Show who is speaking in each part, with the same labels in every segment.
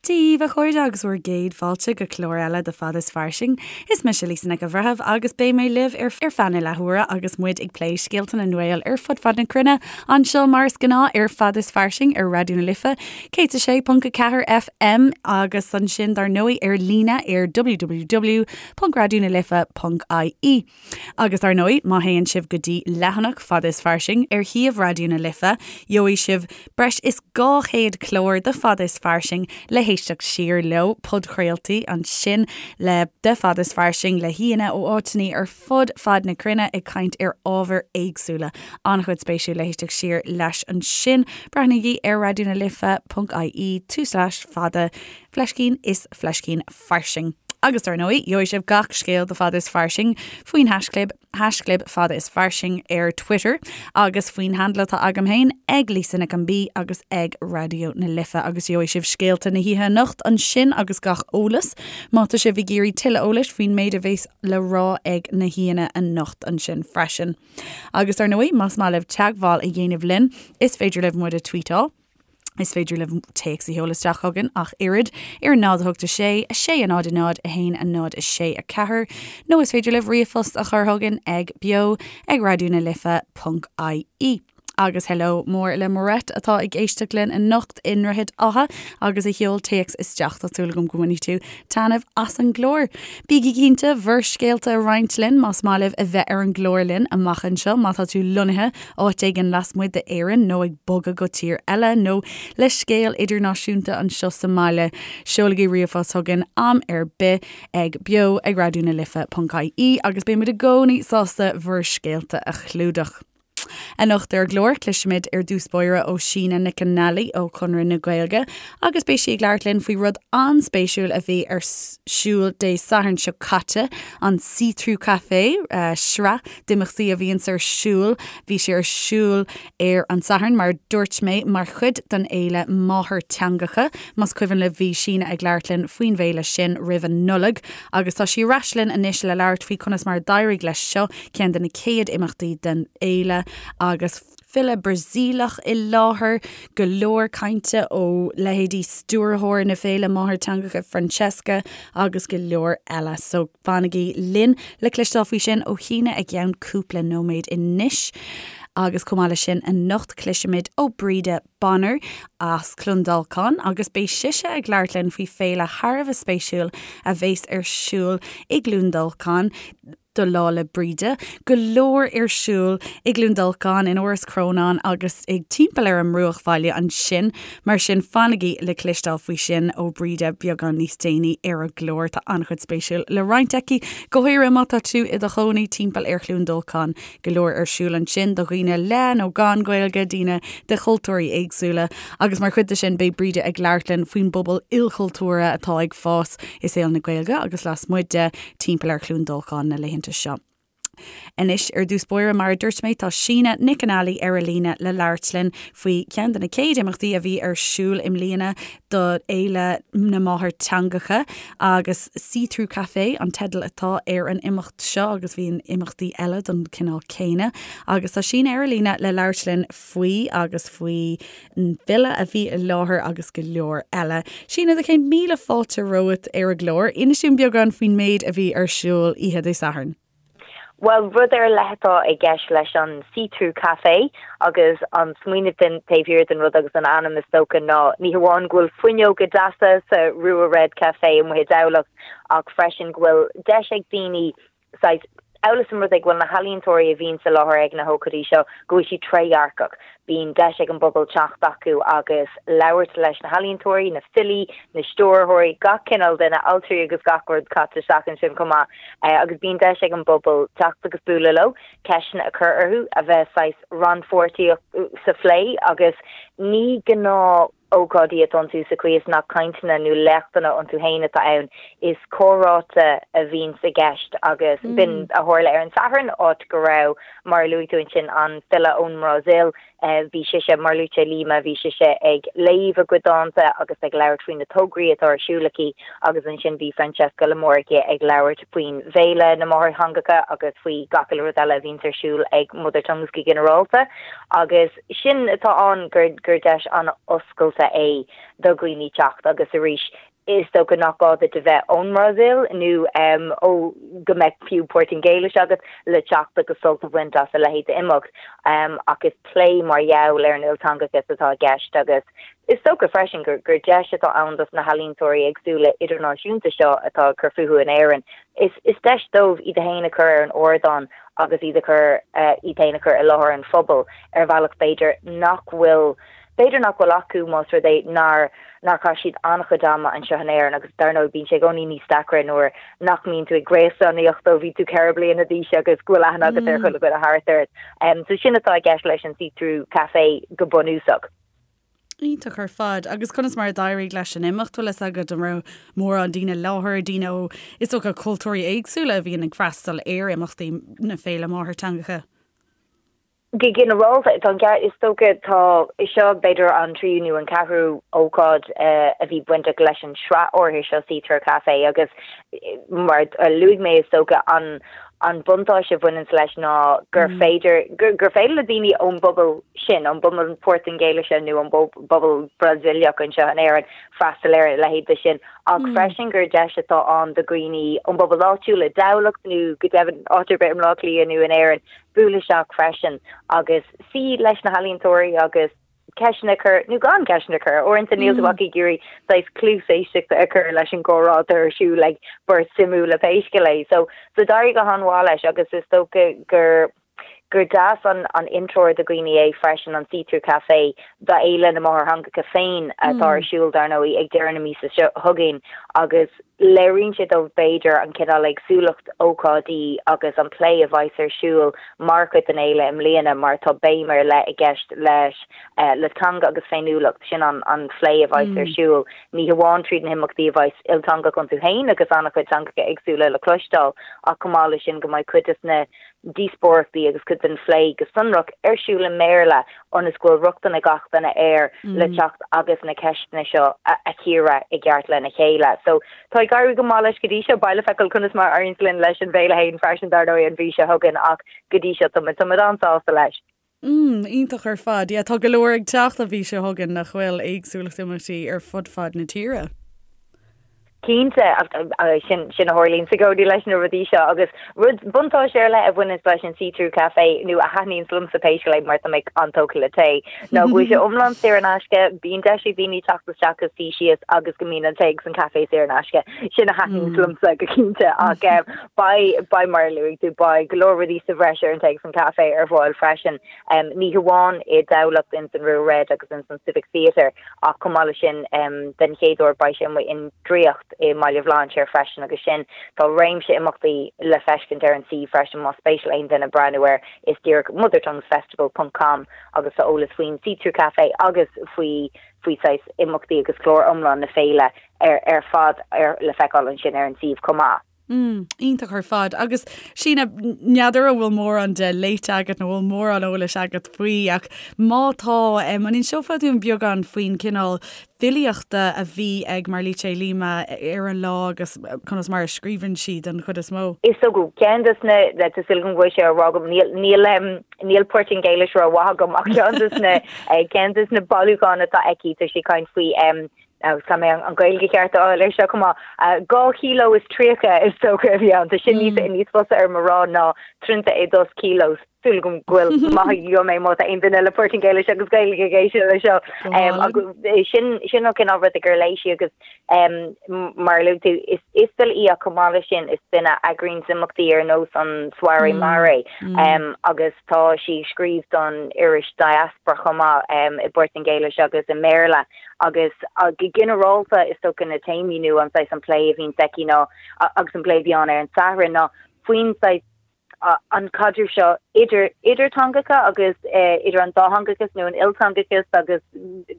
Speaker 1: Dia daoibh, a chairde, agus bhur gcéad fáilte go clár eile de Fada is Fairsing. Is mise Lisa Nic an Bhreithimh agus beidh mé libh ar feadh na leathuaire agus muid ag plé scéalta na nGael ar fud fad na cruinne anseo mar is gnáth ar Fada is Fairsing ar Raidió na Life 106.4 FM agus ansin dar ndóigh ar líne ar www.raidionalife.ie. Agus dar ndóigh, má théann sibh go dtí leathanach Fada is Fairsing ar shuíomh Raidió na Life, gheobhaidh sibh breis is 200 clár de Fada is Fairsing le héisteacht siar leo, podchraoltaí ansin le de Fada is Fairsing le haíonna ó áiteanna ar fud fad na cruinne ag caint ar ábhair éagsúla. An-chuid spéisiúil le héisteacht siar leis ansin. Breathnaígí ar raidionalife.ie tulslais fada fleiscín is fleiscín fairsing. Agus dar ndóigh, gheobhaidh sibh gach scéal de Fada is Fairsing faoin haischlib, haischlib Fada is Fairsing ar Twitter agus faoin handle atá agam féin ag Lisa Nic an B agus ag Raidió na Life agus gheobhaidh sibh scéalta na hoíche anocht ansin agus gach eolas má tá sibh ag iarraidh tuilleadh eolais faoin méid a bheas le rá ag na haíonna anocht ansin freisin. Agus dar ndóigh, más maith libh teagmháil a dhéanamh linn, is féidir libh muid a tweetáil. Is féidir libh téacs a sheoladh isteach chugainn ach oiread ar 0 8 6 6 0 0 1 0 6 4 nó is féidir libh ríomhphost a chur chugainn ag beo ag raidió na life ponc ie. Agus hello mór le Moret atá ag éisteacht linn anocht i nDroichead Átha agus a sheol téacs isteach. Tá súil agam go mbainfidh tú taitneamh as an gclár. Bígí cinnte bhur scéalta a roinnt linn más maith libh a bheith ar an gclár linn amach anseo má tá tú lonnaithe áit éigin lasmuigh d'Éirinn nó ag bogadh go tír eile nó le scéal idirnáisiúnta anseo sa mbaile, seolaigí ríomhphost chugainn am ar bith ag beo ag raidió na life ponc ie agus beidh muid i gcónaí sásta bhur scéalta a chlúdach. Anocht ar an gclár, cloisfimid ar dtús báire ó Síne Nic an Ailí ó Chonradh na Gaeilge agus beidh sí ag labhairt linn faoi rud an-spéisiúil a bhí ar siúl Dé Sathairn seo caite, an See Through Café, sraith d'imeachtaí a bhíonns ar siúl. Bhí sé ar siúl ar an Satharn, mar a dúirt mé, mar chuid den fhéile Máthairtheangacha. Más cuimhin libh bhí Síne ag labhairt linn faoin bhféile sin roimh an Nollaig agus tá sí ar ais linn anois le labhairt faoi conas mar a d'éirigh leis seo, ceann de na chéad imeachtaí den fhéile agus file Brasaíleach i láthair, go leor cainte ó leithéidí stiúrthóir na féile Máthairtheangacha Francesca agus go leor eile. So. Fanaigí linn le cloisteáil faoi sin ó Shíne i gceann cúpla nóiméad anois. Agus chomh maith leis sin, anocht cloisfimid ó Breda Bonner as Clondalkin agus beidh sise ag labhairt linn faoi féile thar a bheith spéisiúil a bheas ar siúl i gCluain Dolcáin do Lá 'le Bríde. Go leor ar siúl i gCluain Dolcáin, in Áras Chrónáin agus ag timpeall ar an mbruachbhaile ansin. Mar sin, fanaigí le cloisteáil faoi sin ó Breda beagán níos déanaí ar an gclár. Tá an-chuid spéisiúil le roinnt aici, go háirithe má tá tú i do chónaí timpeall ar Chluain Dolcáin. Go leor ar siúl ansin do dhaoine le nó gan Gaeilge, daoine de chultúirí éagsúla. Agus mar chuid de sin, beidh Breda ag labhairt linn faoin bpobal ilchultúrtha atá ag fás i saol na Gaeilge agus lasmuigh de, timpeall ar Chluain Dolcáin na laethanta seo. Anois, ar dtús báire, mar a dúirt mé, tá Síne Nic an Ailí ar an líne le labhairt linn faoi cheann de na chéad imeachtaí a bhí ar siúl i mbliana do Fhéile na Máthairtheangacha agus See Through Café an teideal atá ar an imeacht seo agus bhíonn imeachtaí eile den chineál céanna agus tá Síne ar an líne le labhairt linn faoi agus faoi an bhfile a bhí i láthair agus go leor eile. Síne, do chéad míle fáilte romhat ar an gclár. Inis dúinn beagán faoin méid a bhí ar siúl oíche Dé Sathairn.
Speaker 2: Bhuel, rud ar leith atá i gceist leis an See Through Café agus an smaoineamh den taobh thiar den rud agus an ainm is dócha ná ní hamháin go bhfuil fuinneoga deasa sa Rua Red Café amuigh i dTamhlacht ach freisin go bhfuil deis ag daoine saghas, amhail is an rud é go bhfuil na healaíontóirí a bhíonn sa láthair ag na hócáidí seo, go bhfuil siad trédhearcach. Bíonn deis ag an bpobal teacht acu agus labhairt leis na healaíontóirí, na filí, na stiúrthóirí, gach cineál duine, altraí agus gach rud caite isteach ansin chomh maith. Agus bíonn deis ag an bpobal teacht agus bualadh leo, ceisteanna a chur orthu, a bheith saghas rannpháirteach sa phlé agus ní gnáth ócáidí atá iontu sa chaoi is nach cainteanna nó léachtanna iontu féin atá ann, is comhráite a bhíonns i gceist agus b'in a tharla ar an Satharn, áit go raibh, mar a luaigh tú ansin, an file ón mBrasaíl, bhí sise, Marluce Lima, bhí sise ag léamh a cuid dánta agus ag labhairt faoi na tograí atá ar siúl aici agus ansin bhí Francesca Lamorchia ag labhairt faoin bhFéile na Máthairtheangacha agus faoi gach uile rud eile a bhíonns ar siúl ag Mother Tongues go ginearálta agus. Sin atá ann, gur deis an-oscailte. speisialta é do dhaoine teacht agus arís is dócha nach gá duit a bheith ón mBrasaíl nó ó go mbeadh fiú Portaingéilis agat le teacht agus sult a bhaint as a leithéid d'imeacht. Ach is plé mar gheall ar an ilteangachas atá i gceist agus is dócha freisin gur gur deis atá ann dos na healaíontóirí éagsúla idirnáisiúnta seo atá ag cur fúthu in Éirinn. Is is deis dóibh iad féin a chur ar an ardán agus iad a chur iad féin a chur i láthair an phobail ar bhealach b'fhéidir nach bhfuil b'fhéidir nach bhfuil acu más rud é nár nár chaith siad an-chuid ama anseo in Éirinn agus dar ndóigh bíonn sé i gcónaí níos deacra nuair nach mbíonn tú ag gréasánaíocht ó bhí tú 4 bliana d'aois agus go bhfuil aithne agat ar chuile dhuine thart ort. So sin atá i gceist leis an See Through Café go bunúsach.
Speaker 1: Iontach ar fad. Agus conas mar a d'éirigh leis an imeacht? Bhfuil fhios agat an raibh mórán daoine i láthair, daoine ó, is dócha, cultúirí éagsúla a bhíonn ag freastal ar imeachtaí na Féile Máthairtheangacha?
Speaker 2: Go ginearálta, tá an ceart, is dócha, tá, seo b'fhéidir an tríú nó an ceathrú ócáid a bhí bainteach leis an sraith áirithe seo See Through Café agus mar a luaigh mé is dócha an an buntáiste a bhaineanns leis ná gur féidir, gur féidir le daoine ón bpobal sin, ón bpobal Portaingéilise nó ón bpobal Brasaíleach anseo in Éirinn freastal ar a leithéid de sin, ach freisin gur deis atá ann do dhaoine ón bpobal áitiúil i dTamhlacht nó go deimhin áit ar bith i mBleá Cliath nó in Éirinn bualadh isteach freisin agus suí leis na healaíontóirí agus ceisteanna a chur, nó gan ceisteanna a chur. Uaireanta níl tú ach ag iarraidh saghas cluas éisteachta a chur leis an gcomhrá atá ar siúl ag beirt suimiúla pé scéal é. So, so d'éirigh go han-mhaith leis agus is dócha gur gur deas an an intreoir do dhaoine é freisin an See Through Café do Fhéile na Máthairtheangacha féin atá ar siúl dar ndóigh ag deireadh na míosa seo chugainn agus Léiríonn sé dóibh, b'fhéidir, an cineál éagsúlacht ócáidí agus an plé a bheas ar siúl mar chuid den fhéile i mbliana mar tá béim ar leith i gceist leis le teanga agus féiniúlacht, sin an an phlé a bheas ar siúl, ní hamháin tríd na himeachtaí a bheas ilteangach iontu féin agus an-chuid teangacha éagsúla le cloisteáil ach chomh maith leis sin go mbeidh cuid des na díospóireachtaí agus cuid den phlé go sonrach ar siúl i mBéarla ionas go bhfuil rochtain ag gach duine air le teacht agus na ceisteanna seo a chíoradh i gceart lena chéile. So tá ag éirí go maith leis go dtí seo. Beidh le feiceáil conas mar a éiríonns linn leis an bhféile féin freisin dar ndóigh an mhí seo chugainn ach go dtí seo tá muid tá muid an-sásta leis.
Speaker 1: Mm, iontach ar fad. Yeah, tá go leor ag teacht an mhí seo chugainn nach bhfuil éagsúlacht imeachtaí ar fud fad na tíre.
Speaker 2: Cinnte, sin sin a tharlaíonns i gcónaí leis na rudaí seo agus rud buntáiste ar leith a bhaineanns leis an See Through Café nó a thaitníonns liomsa pé scéal é mar tá mé an-tógtha le tae ná go bhfuil sé iomlán saor in aisce, bíonn deis ag daoine teacht isteach agus suí síos agus go mbíonn an tae agus an caife saor in aisce. Sin a thaitníonns liomsa go cinnte ach Beidh, beidh mar a luaigh tú, beidh go leor rudaí sa bhreis ar an tae agus an caife ar fáil freisin, ní hamháin i dTamhlacht ins an Rua Red agus ins an Civic Theatre ach chomh maith leis sin den chéad uair beidh sé amuigh i nDraíocht i mBaile Bhlainséir freisin agus sin, tá réimse imeachtaí le feiscint ar an suíomh freisin más spéis le aon duine breathnú air, is díreach mothertonguesfestival ponc com agus tá eolas faoin See Through Café agus faoi faoi saghas imeachtaí agus clár iomlán na féile ar ar fad ar le feiceáil ansin ar an suíomh chomh maith.
Speaker 1: Mm, iontach ar fad. Agus Síne, n'fheadar an bhfuil mórán de léite agat nó bhfuil mórán eolais agat faoi ach má tá, an inseofá dúinn beagán faoin cineál filíochta a bhí ag Marlice Lima ar an lá agus conas mar a scríobhann sí den chuid is mó?
Speaker 2: Is dócha, ceann des na, tá súil agam go bhfuil sé á rá agam, níl, níl, níl Portaingéilis rómhaith agam ach ceann des na, ceann des na bailiúcháin atá aici, tá sí ag caint faoi agus caithfidh mé an Ghaeilge cheart a fháil air seo chomh maith, 2 kilo is 30 is dócha a bhí ann, tá sin níos níos fusa orm a rá ná 32 quilos. Súil agam go bhfuil maith agam é má tá aon duine le Portaingéilis agus Gaeilge ag éisteacht leis seo. Agus sin sin an cineál rud gur léigh sí agus mar a luaigh tú, is is file í ach chomh maith leis sin is duine a eagraíonn imeachtaí ar nós an Soirée Maré agus tá sí ag scríobh don iris Diaspora chomh maith i bPortaingéilis agus i mBéarla. Agus go ginearálta, is dócha na téamaí nó an saghas an plé a bhíonns aici ná, agus an plé a bhí ann ar an Satharn ná faoin saghas an caidreamh seo idir idir teangacha agus idir an dátheangachas nó an ilteangachas agus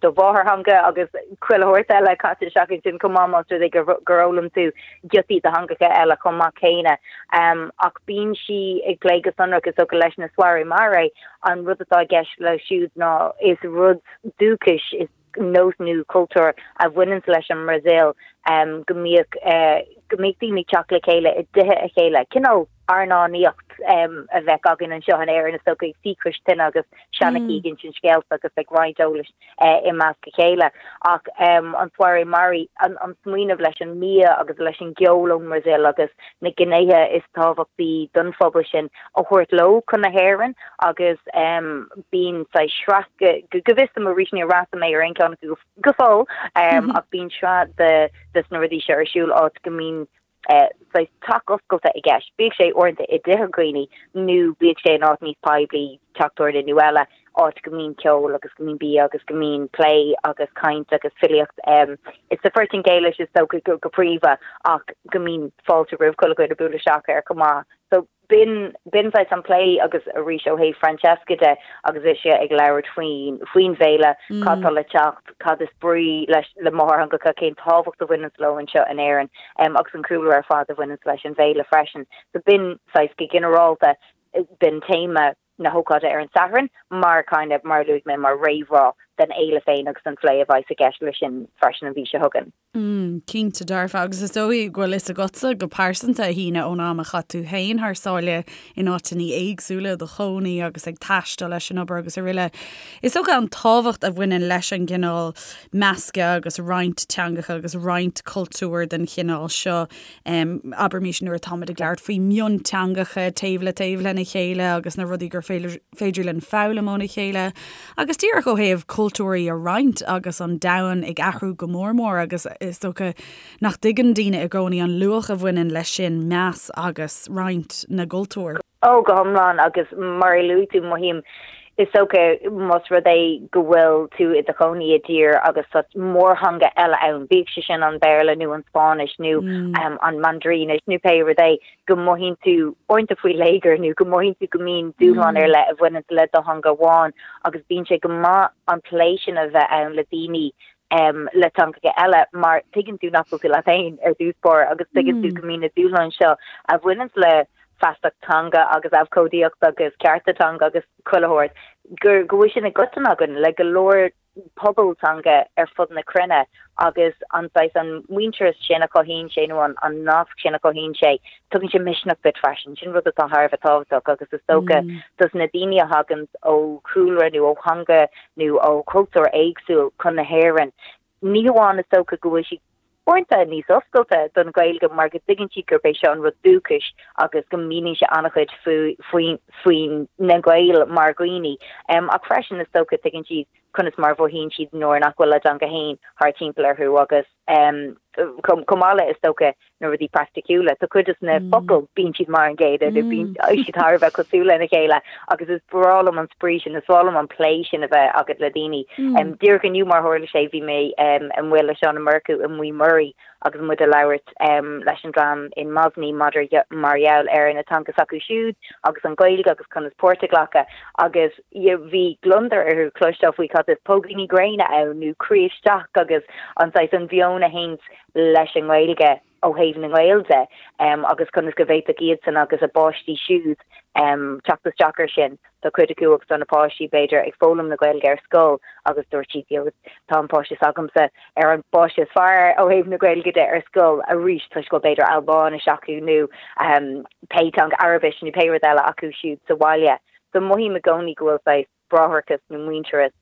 Speaker 2: do mháthairtheanga agus chuile shórt eile caite isteach ansin chomh maith más rud é gur gur fhoghlaim tú giotaí de theangacha eile chomh maith céanna. Ach bíonn sí ag plé go sonrach is dócha leis na Soirée Maré, an rud atá i gceist leo siúd ná is rud dúchais, is nós nó cultúr a bhaineanns leis an mBrasaíl go mbíodh go mbíodh daoine ag teacht le chéile i dtithe a chéile, cineál airneánaíocht. a bheadh againn anseo in Éirinn is dócha ag suí cois tine agus seanchaí ag insint scéalta agus ag roinnt eolais i measc a chéile. Ach an Soirée Mari, an smaoineamh leis an mbia agus leis an gceol ón mBrasaíl agus na gnéithe is tábhachtaí don phobal sin a thabhairt leo chun na hÉireann agus bíonn saghas sraith, go bhfios dom arís níor fhreastail mé ar aon cheann acu go fóill, ach bíonn sraith de na rudaí seo ar siúl áit go mbíonn saghas teach oscailte i gceist, bíodh sé uaireanta i dtithe dhaoine nó bíodh sé in áit níos poiblí, teach tabhairne nó eile, áit go mbíonn ceol agus go mbíonn bia agus go mbíonn plé agus caint agus filíocht. Is sa Phortaingéilis is dócha go príomha ach go mbíonn fáilte roimh chuile dhuine bualadh isteach air chomh maith. So. B'in, b'in saghas an plé agus arís ó thaobh Francesca de agus ise ag labhairt faoin, faoin bhféile, cad tá le teacht, cad is brí leis, le máthairtheangacha, cén tábhacht a bhaineanns leo anseo in Éirinn agus an cúlra ar fad a bhaineanns leis an bhféile freisin. So b'in saghas go ginearálta, b'in téama na hócáide ar an Satharn mar kind of, mar a luaigh mé, mar réamhrá den fhéile féin agus an phlé a bheas i gceist leis sin freisin an mhí seo chugainn.
Speaker 1: Mm, cinnte dearfa, agus is dóigh go bhfuil fhios agatsa go pearsanta, a Shíne, ón am a chaith tú féin thar sáile in áiteanna éagsúla i do chónaí agus ag taisteal leis an obair agus araile. Is dócha an tábhacht a bhaineann leis an gcineál measctha agus roinnt teangacha agus roinnt cultúr den chineál seo, abraimis nuair atáimid ag labhairt faoi mhionteangacha taobh le taobh lena chéile agus na rudaí gur féidir linn foghlaim óna chéile agus díreach ó thaobh cultúirí a roinnt agus an domhan ag athrú go mór mór agus is dócha nach dtuigeann daoine i gcónaí an luach a bhaineann leis sin, meas agus roinnt na gcultúr.
Speaker 2: Ó, go hiomlán agus mar a luaigh tú, mothaím, is dócha, más rud é go bhfuil tú i do chónaí i dtír agus tá mórtheanga eile ann, bíodh sé sin an Béarla nó an Spáinnis nó an Mandairinis nó pé rud é, go mothaíonn tú uaireanta faoi léigear nó go mothaíonn tú go mbíonn dúshlán ar leith a bhaineann le do theanga amháin agus bíonn sé go maith an plé sin a bheith ann le daoine le teangacha eile mar tuigeann tú nach bhfuil tú leat féin ar dtús báire agus tuigeann tú go mbíonn na dúshláin seo a bhaineann le feasacht teanga agus abhcóideacht agus cearta teanga agus chuile shórt, gur go bhfuil sin i gcoiteann againn le go leor pobal teanga ar fud na cruinne agus an saghas an muintearas sin a chothaíonn sé nó an an nasc sin a chothaíonn sé, tugann sé misneach duit freisin. Sin rud atá thar a bheith tábhachtach agus is dócha dos na daoine a thaganns ó chúlra nó ó theanga nó ó chultúr éagsúil chun na hÉireann, ní hamháin is dócha go bhfuil siad uaireanta níos oscailte don Ghaeilge mar go dtuigeann siad gurb é seo an rud dúchais agus go míníonn sé an-chuid faoi faoi na Gaeil mar dhaoine. Ach freisin is dócha tuigeann siad conas mar a mhothaíonn siad nuair nach bhfuil a dteanga féin thart timpeall orthu agus chomh maith le is dócha na rudaí praiticiúla. Tá cuid de na focail, bíonn siad mar an gcéanna nó bíonn siad thar a bheith cosúil lena chéile agus is breá liom an spraoi sin, is breá liom an plé sin a bheith agat le daoine. Díreach inniu mar tharla sé bhí mé amuigh le Seán Ó Murchú i Maigh Muirí agus muid ag labhairt leis an dream in Mosney maidir mar gheall ar na teanga s'acu siúd agus an Ghaeilge agus conas páirt a ghlacadh agus bhí gliondar orthu cloisteáil faoi cad is póigíní gréine ann nó croí isteach agus an saghas an mheon a théanns leis an nGaeilge ó thaobh na nGael de agus conas go bhféadfadh iadsan agus a bpáistí siúd teacht isteach air sin. Tá cuid acu agus tá na páistí, b'fhéidir, ag foghlaim na Gaeilge ar scoil agus dúirt siad, you know, tá an páiste s'agamsa ar an bpáiste is fearr ó thaobh na Gaeilge de ar scoil arís toisc go bhfuil b'fhéidir Albáinis acu nó pé teanga, Araibis nó pé rud eile acu siúd sa bhaile. So mothaím i gcónaí go bhfuil saghas bráithreachas nó muintearas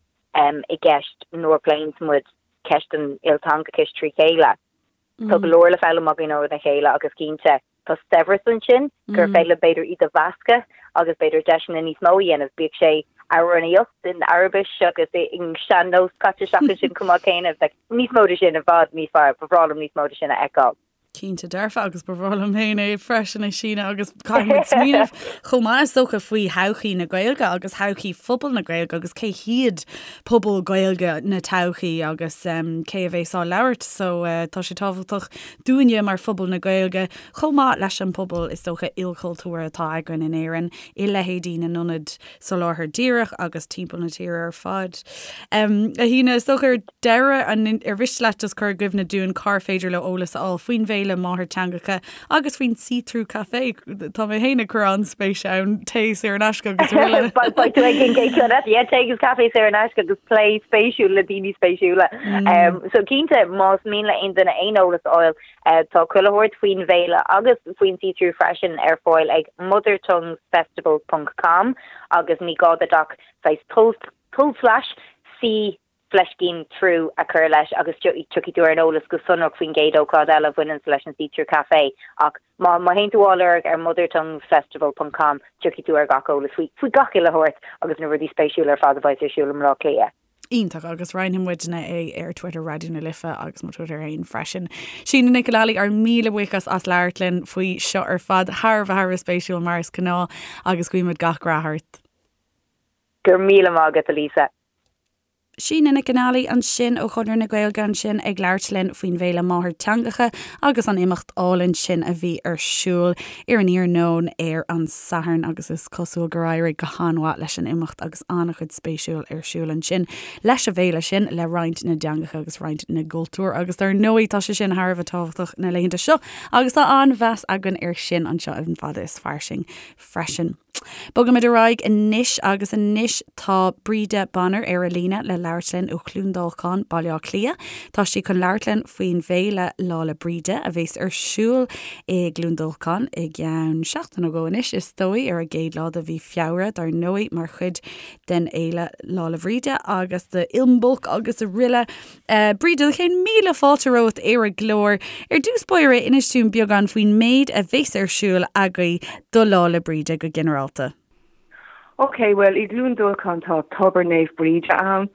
Speaker 2: i gceist nuair a phléanns muid ceist an ilteangachais trí chéile. Tá go leor le foghlaim againn óna chéile agus cinnte tá saibhreas ansin gur féidir linn b'fhéidir iad a mheascadh agus b'fhéidir deiseanna níos mó a dhéanamh, bíodh sé amhránaíocht in Araibis agus in sean-nós caite isteach ansin chomh maith céanna. Bheadh níos mó de sin i bhfad níos fearr, ba bhreá liom níos mó de sin a fheiceáil.
Speaker 1: Cinnte dearfa, agus ba bhreá liom féin é freisin, a Shíne, agus caithfidh muid smaoineamh chomh maith is dócha faoi thodhchaí na Gaeilge agus thodhchaí phobal na Gaeilge agus cé hiad pobal Gaeilge na todhchaí agus cé a bheas á labhairt. So tá sé tábhachtach dúinne mar phobal na Gaeilge chomh maith leis an pobal is dócha ilchultúrtha atá againn in Éirinn i leithéidí na n-ionad soláthair díreach agus timpeall na tíre ar fad. A Shíne, is dócha ar deireadh, an, ar mhiste leat just cur i gcuimhne dúinn cár féidir leo eolas a fháil faoin bhféile? bhFéile Máthairtheangacha agus faoin See Through Café. Tá mé féin ag cur an-spéis ann, tae saor in aisce agus
Speaker 2: araile. Beidh tú ag an gcéad cheann eile. Yeah, tae agus caife saor in aisce agus plé spéisiúil le daoine spéisiúla. So cinnte, más mian le aon duine aon eolas a fháil, tá chuile shórt faoin bhféile agus faoin See Through freisin ar fáil ag mothertonguesfestival ponc com agus ní gá duit ach saghas tulslais see fleiscín through a chur leis agus tiocfaidh tú ar an eolas go sonrach faoin gcéad ócáid eile a bhaineanns leis an See Through Café ach má má théann tú á lorg ar mothertonguesfestival ponc com tiocfaidh tú ar gach eolas faoi faoi gach uile shórt agus na rudaí spéisiúla ar fad a bheidh ar siúl i mBleá Cliath.
Speaker 1: Iontach, agus roinnfidh muidne é ar Twitter Raidió na Life agus mo Twitter féin freisin. Síne Nic an Ailí, ár míle buíochas as labhairt linn faoi seo ar fad, thar a bheith thar a bheith spéisiúil mar is gnáth agus guímid gach rath ort.
Speaker 2: Go raibh míle maith agat, a Lisa.
Speaker 1: Síne Nic an Ailí ansin ó Chonradh na Gaeilge ansin ag labhairt linn faoin bhFéile Máthairtheangacha agus an imeacht álainn sin a bhí ar siúl ar an iarnóin ar an Satharn agus is cosúil gur éirigh go han-mhaith leis an imeacht agus an-chuid spéisiúil ar siúl ansin leis an bhféile sin le roinnt na dteangacha agus roinnt na gcultúr agus dar ndóigh tá sé sin thar a bheith tábhachtach na laethanta seo agus tá an-mheas againn ar sin anseo in Fada is Fairsing freisin. Bogaimid ar aghaidh anois agus anois tá Bríde Bonner ar an líne le labhairt linn ó Chluain Dolcáin, Baile Átha Cliath. Tá sí chun labhairt linn faoin bhféile Lá 'le Bríde a bhéas ar siúl i gCluain Dolcáin i gceann seachtain nó dhó anois is dóigh, ar an gcéad lá de mhí Feabhra dar ndóigh mar chuid den fhéile Lá 'le Bríde agus de Imbolc agus araile. Bríde, céad míle fáilte romhat ar an gclár. Ar dtús báire, inis dúinn beagán faoin méid a bheas ar siúl agaibh do Lá 'le Bríde go ginearálta.
Speaker 3: Ok, bhuel, i gCluain Dolcáin tá Tobar Naomh Bríde ann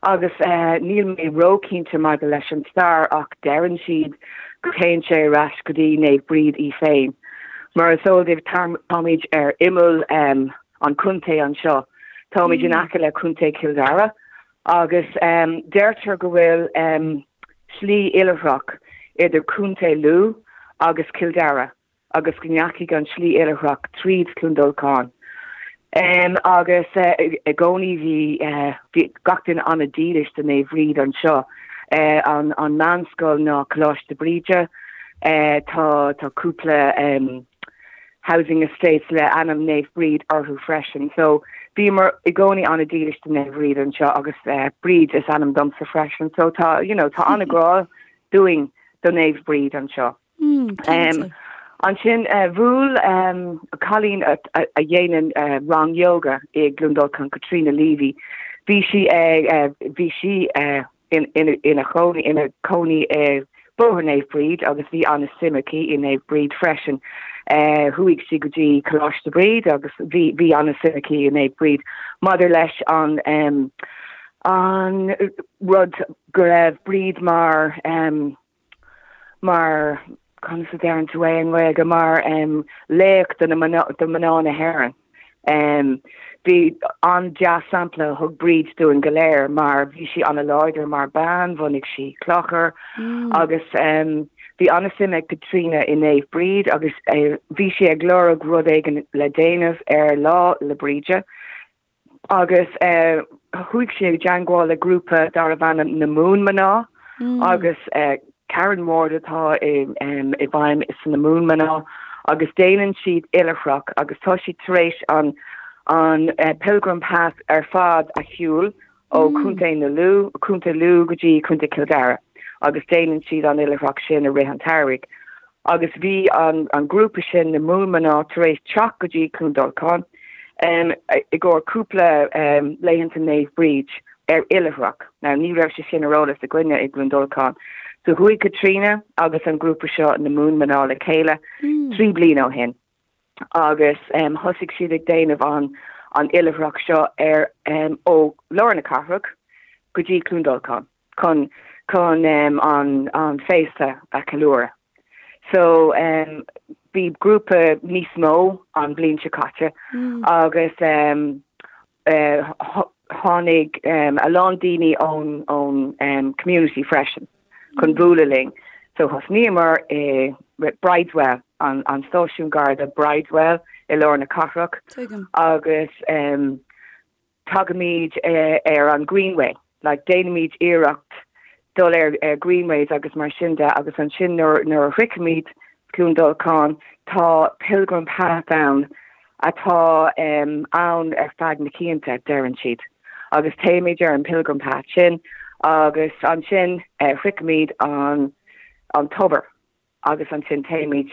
Speaker 3: agus níl mé ró-chinnte maidir leis an stair ach deireann siad go dtéann sé ar ais go dtí Naomh Bríd í féin. Mar is eol daoibh táimid ar imeall an chontae anseo. Táimid in aice le Contae Chill Dara Agus deirtear go bhfuil slí oilithreach idir Contae Lú agus Cill Dara agus go ndeachaigh an slí oilithreach tríd Cluain Dolcáin. Agus i gcónaí bhí gach duine an-dílis do Naomh Bríd anseo. An meánscoil ná Coláiste Bríde. Tá cúpla housing estates le ainm Naomh Bríd orthu freisin. So bhíomar i gcónaí an-dílis do Naomh Bríd anseo agus Bríd is ainm domsa freisin. So tá, you know, tá an-ghrá dúinn do Naomh Bríd anseo. Mm, ansin bhuail cailín a dhéanann rang yoga i gCluain Dolcáin, Caitríona Leavy, bhí sí ag bhí sí ina chónaí ina cónaí i Bóthar Naomh Bríd agus bhí an-suim aici i Naomh Bríd freisin. Chuaigh sí go dtí Coláiste Bríd agus bhí bhí an-suim aici i Naomh Bríd maidir leis an an rud go raibh Bríd mar mar, conas a deireann tú é i nGaeilge, mar laoch do na mná, do mná na hÉireann. Bhí an-dea-sampla a thug Bríd dúinn go léir mar bhí sí an-láidir mar bean, bhunaigh sí clochar agus bhí an-suim ag Caitríona i Naomh Bríd agus bhí sí ag lorg rud éigin le déanamh ar Lá 'le Bríde. Agus chuaigh sí i dteangmháil le grúpa darbh ainm na Moonmná agus Karen Ward atá i bhfeidhm sna Moonmná agus déanann siad oilithreach agus tá siad tar éis an an Pilgrim Path ar fad a shiúl ó Chontae na Lú, Contae Lú go dtí Contae Chill Dara agus déanann siad an oilithreach sin i rith an tsamhraidh. Agus bhí an grúpa sin, na Moonmná, tar éis teacht go dtí Cluain Dolcáin i gcomhair cúpla laethanta Naomh Bríd ar oilithreach. Now ní raibh sé sin ar eolas againne i gCluain Dolcáin. So chuaigh Caitríona agus an grúpa seo, na Moonmná, le chéile 3 bliana ó shin agus thosaigh siad ag déanamh an an oilithreach seo ar ó lár na cathrach go dtí Cluain Dolcáin. chun chun an an féasta a cheiliúradh. So bhí grúpa níos mó an bhliain seo caite agus tháinig a lán daoine ón ón community freisin chun bualadh linn. So thosnaíomar i Brideswell, an an stáisiún Garda Brideswell i lár na cathrach agus tagaimid ar an Greenway, like déanaimid iarracht dul ar ar Greenways agus mar sin de agus ansin nuair nuair a shroichimid Cluain Dolcáin tá Pilgrim Path ann atá ann ar feadh na cianta, deireann siad. Agus téimid ar an Pilgrim Path sin agus ansin shroichimid an an tobar. agus ansin téimid.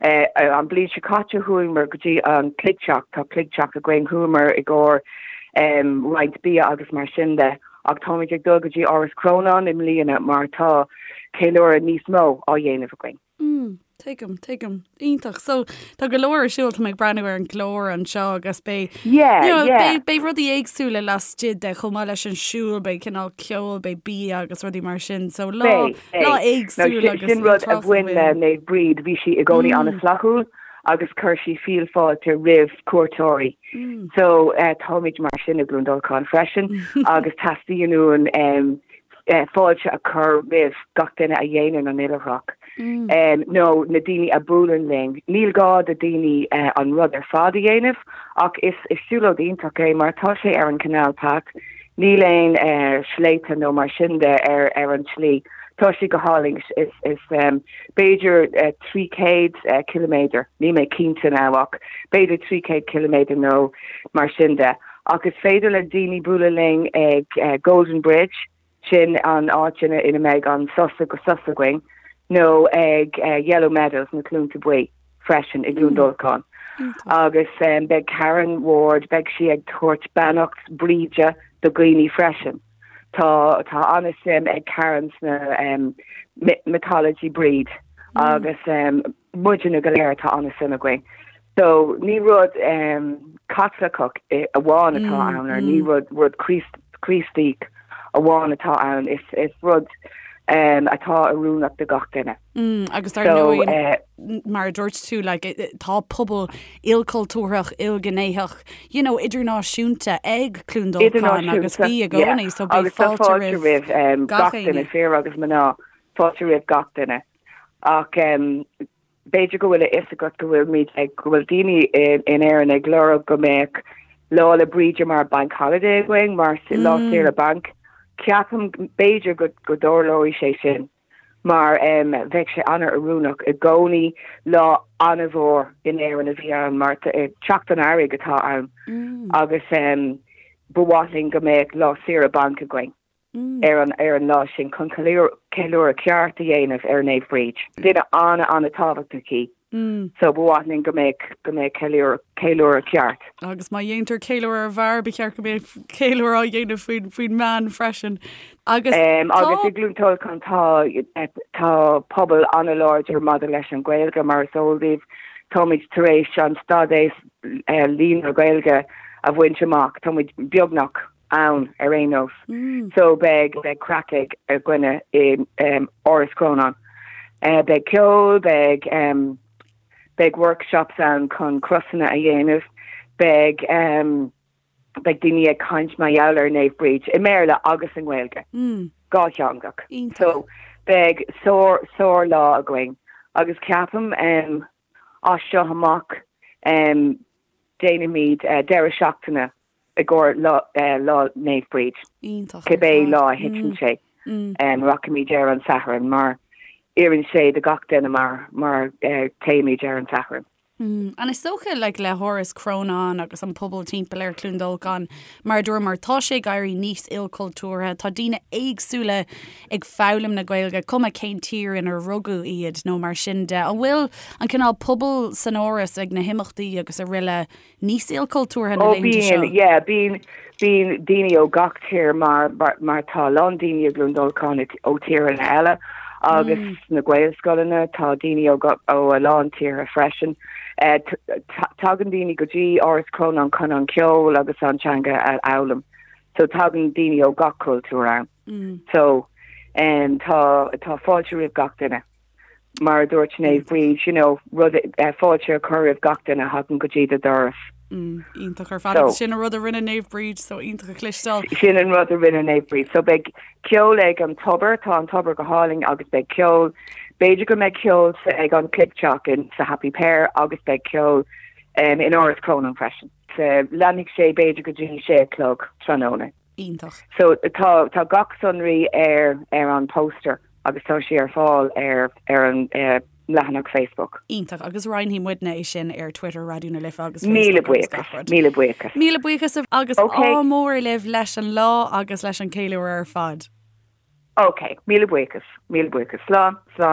Speaker 3: An bhliain seo caite chuamar go dtí an cloigtheach, tá cloigtheach againn, chuamar i gcomhair roinnt bia agus mar sin de ach táimid ag dul go dtí Áras Chrónáin i mbliana mar tá ceiliúradh níos mó á dhéanamh againn.
Speaker 1: Mm, tuigim, tuigim. Iontach. So tá go leor ar siúl, tá mé ag breathnú ar an gclár anseo agus beidh
Speaker 3: Yeah, you know, yeah.
Speaker 1: beidh, beidh rudaí éagsúla laistigh de chomh maith leis an siúl, beidh cineál ceol, beidh bia agus rudaí mar sin. So lá
Speaker 3: Beidh, beidh.
Speaker 1: lá éagsúil
Speaker 3: Now,
Speaker 1: agus
Speaker 3: sin rud a
Speaker 1: údarásach
Speaker 3: bhain le
Speaker 1: bhain.
Speaker 3: Naomh Bríd, bhí sí i gcónaí an-fhlaithiúil agus chuir sí fial fáilte roimh cuairteoirí. So eh, táimid mar sin i gCluain Dolcáin freisin agus teastaíonn uainn em, fáilte a chur roimh gach duine a dhéanann an oilithreacht nó na daoine a buaileann linn. Níl gá do daoine an rud ar fad a dhéanamh ach is siúlóid iontach é mar tá sé ar an Canal Path, níl aon sléibhte nó mar sin de ar ar an tslí. Tá sé go hálainn, is is b'fhéidir 300 ciliméadar, níl mé cinnte now ach b'fhéidir 300 ciliméadar nó mar sin de. Ach is féidir le daoine bualadh linn ag Golden Bridge, sin an áit ina ina mbeidh an sos sos againn, nó ag Yellow Meadows, na Cluainte Buí, freisin i gCluain Dolcáin. Agus beidh Karen Ward, beidh sí ag tabhairt beannacht Bríde do dhaoine freisin. Tá tá an-suim ag Karen sna mythology Bríd agus muidne go léir tá an-suim againn. So ní rud Caitliceach amháin atá ann or ní rud rud Críostaí amháin atá ann, is is rud atá oiriúnach do gach duine.
Speaker 1: Agus dar ndóigh mar a dúirt tú like tá pobal ilchultúrthach, ilghnéitheach, you know, idirnáisiúnta ag Cluain Dolcáin agus bhí i gcónaí so beidh fáilte
Speaker 3: roimh gach duine, fir agus mná, fáilte roimh gach duine. Ach b'fhéidir go bhfuil a fhios agat go bhfuilimid ag, go bhfuil daoine in Éirinn ag lorg go mbeadh Lá 'le Bríde mar bank holiday againn, mar lá saoire bainc. Ceapaim, b'fhéidir go go dtarlóidh sé sin mar bheadh sé an-oiriúnach i gcónaí. Lá an-mhór in Éirinn a bhí ann mar teacht an earraigh atá ann agus ba mhaith linn go mbeadh lá saoire bainc againn. ar an ar an lá sin chun ceiliúradh ceart a dhéanamh ar Naomh Bríd. Duine an-an-tábhachtach í so ba mhaith linn go mbeadh go mbeadh ceiliúradh ceiliúradh ceart.
Speaker 1: Agus má dhéantar ceiliúradh ar bhfear, ba cheart go mbeadh ceiliúradh á dhéanamh faoin faoin mbean freisin.
Speaker 3: Agus tá. Agus i gCluain Dolcáin tá tá pobal an-láidir maidir leis an Ghaeilge mar is eol daoibh. Táimid tar éis an stádas líonra Gaeilge a bhaint amach. Táimid beagnach ann ar aon nós. So beidh beidh craic ag againne i Áras Chrónáin. Beidh ceol, beidh beidh workshops ann chun crosanna a dhéanamh, beidh beidh daoine ag caint mar gheall ar Naomh Bríd i mBéarla agus i nGaeilge. Dhátheangach. So beidh sár sár lá againn agus ceapaim as seo amach déanfaimid deireadh seachtaine i gcomhair Lá Naomh Bríd.
Speaker 1: Iontach.
Speaker 3: Cibé lá a thiteann sé, rachaimid ar an Satharn mar oireann sé do gach duine mar mar téimid ar an Satharn.
Speaker 1: And is dócha like le hÁras Chrónáin agus an pobal timpeall ar Chluain Dolcáin, mar a dúramar, tá sé ag éirí níos ilchultúrtha, tá daoine éagsúla ag foghlaim na Gaeilge, cuma cén tír inar rugadh iad nó mar sin de. An bhfuil an cineál pobal san Áras ag na himeachtaí agus araile níos ilchultúrtha na
Speaker 3: Ó
Speaker 1: laethanta seo?
Speaker 3: bíonn, yeah, bíonn, bíonn daoine ó gach tír mar, mar, mar tá a lán daoine i gCluain Dolcáin ó tíortha eile agus sna Gaelscoileanna tá daoine ó, ó a lán tíortha freisin. Eh, tagann daoine go dtí Áras Chrónáin chun an ceol agus an teanga a fhoghlaim. So tagann daoine ó gach cultúr ann. So, em, tá, tá fáilte roimh gach duine. Mar a dúirt Naomh Bríd, you know, rud, fáilte a chur roimh gach duine a thagann go dtí do dhoras.
Speaker 1: Mm, iontach ar fad. Agus sin an rud a rinne Naomh Bríd, so iontach a chloisteáil.
Speaker 3: Sin an rud a rinne Naomh Bríd. So beidh ceol ag an tobar, tá an tobar go hálainn agus beidh ceol, b'fhéidir go mbeidh ceol ag an Cloigtheach in sa Happy Pear agus beidh ceol um, in Áras Chrónáin freisin. So, leanfaidh sé b'fhéidir go dtí sé a chlog tráthnóna.
Speaker 1: Iontach.
Speaker 3: So tá tá gach sonraí ar ar an poster agus tá sé ar fáil ar ar an leathanach Facebook.
Speaker 1: Iontach, agus roinnfidh muidne é sin ar Twitter Raidió na Life agus
Speaker 3: Míle Facebook agus gach buíochas, rud. míle buíochas.
Speaker 1: Míle buíochas agus Ok. ádh mór libh leis an lá agus leis an ceiliúradh ar fad.
Speaker 3: Ok, míle buíochas, míle buíochas. Slán, slán.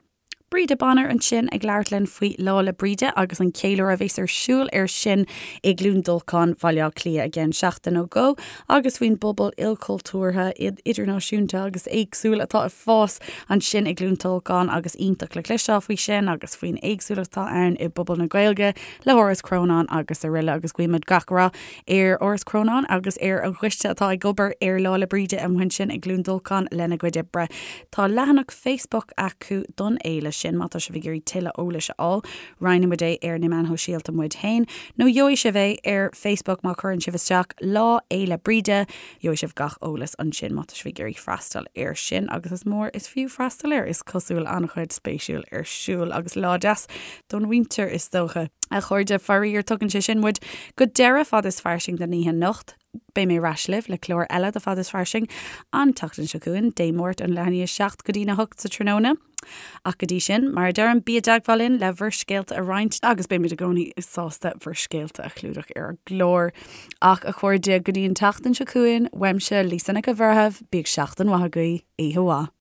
Speaker 1: Breda Bonner ansin ag labhairt linn faoi Lá 'le Bríde agus an ceiliúradh a bheas ar siúl air sin i gCluain Dolcáin, Bhaile Átha Cliath i gceann seachtain nó dhó agus faoin bpobal ilchultúrtha, idirnáisiúnta agus éagsúil atá ag fás ansin i gCluain Dolcáin agus iontach le cloisteáil faoi sin agus faoin éagsúlacht atá ann i bpobal na Gaeilge le hÁras Chrónáin agus araile agus guímid gach rath ar Áras Chrónáin agus ar an gcoiste atá ag obair ar Lá 'le Bríde amuigh ansin i gCluain Dolcáin lena gcuid oibre. Tá leathanach Facebook acu don fhéile sin má tá sibh ag iarraidh tuilleadh eolais a fháil. Roinnfidh muid é ar na meáin shóisialta muid féin nó gheobhaidh sibh é ar Facebook má chuireann sibh isteach Lá Fhéile Bríde. Gheobhaidh sibh gach eolas ansin má tá sibh ag iarraidh freastal air sin agus is mór is fiú freastal air, is cosúil an-chuid spéisiúil ar siúl agus lá deas don mhuintir is dócha. A chairde, faraor tugann sé sin muid go deireadh Fad is Fairsing don oíche anocht. Beidh mé ar ais libh le clár eile de Fad is Fairsing an tseachtain seo chugainn, Dé Máirt ón leath i ndiaidh a 7 go dtí'n 8 sa tráthnóna. Ach go dtí sin, mar a deirim, bí i dteagmháil linn le bhur scéalta a roinnt agus beimid i gcónaí sásta bhur scéalta a chlúdach ar an gclár. Ach a chairde, go dtí an tseachtain seo chugainn, uaimse, Lisa Nic an Bhreithimh, bíodh seachtain mhaith agaibh, oíche mhaith.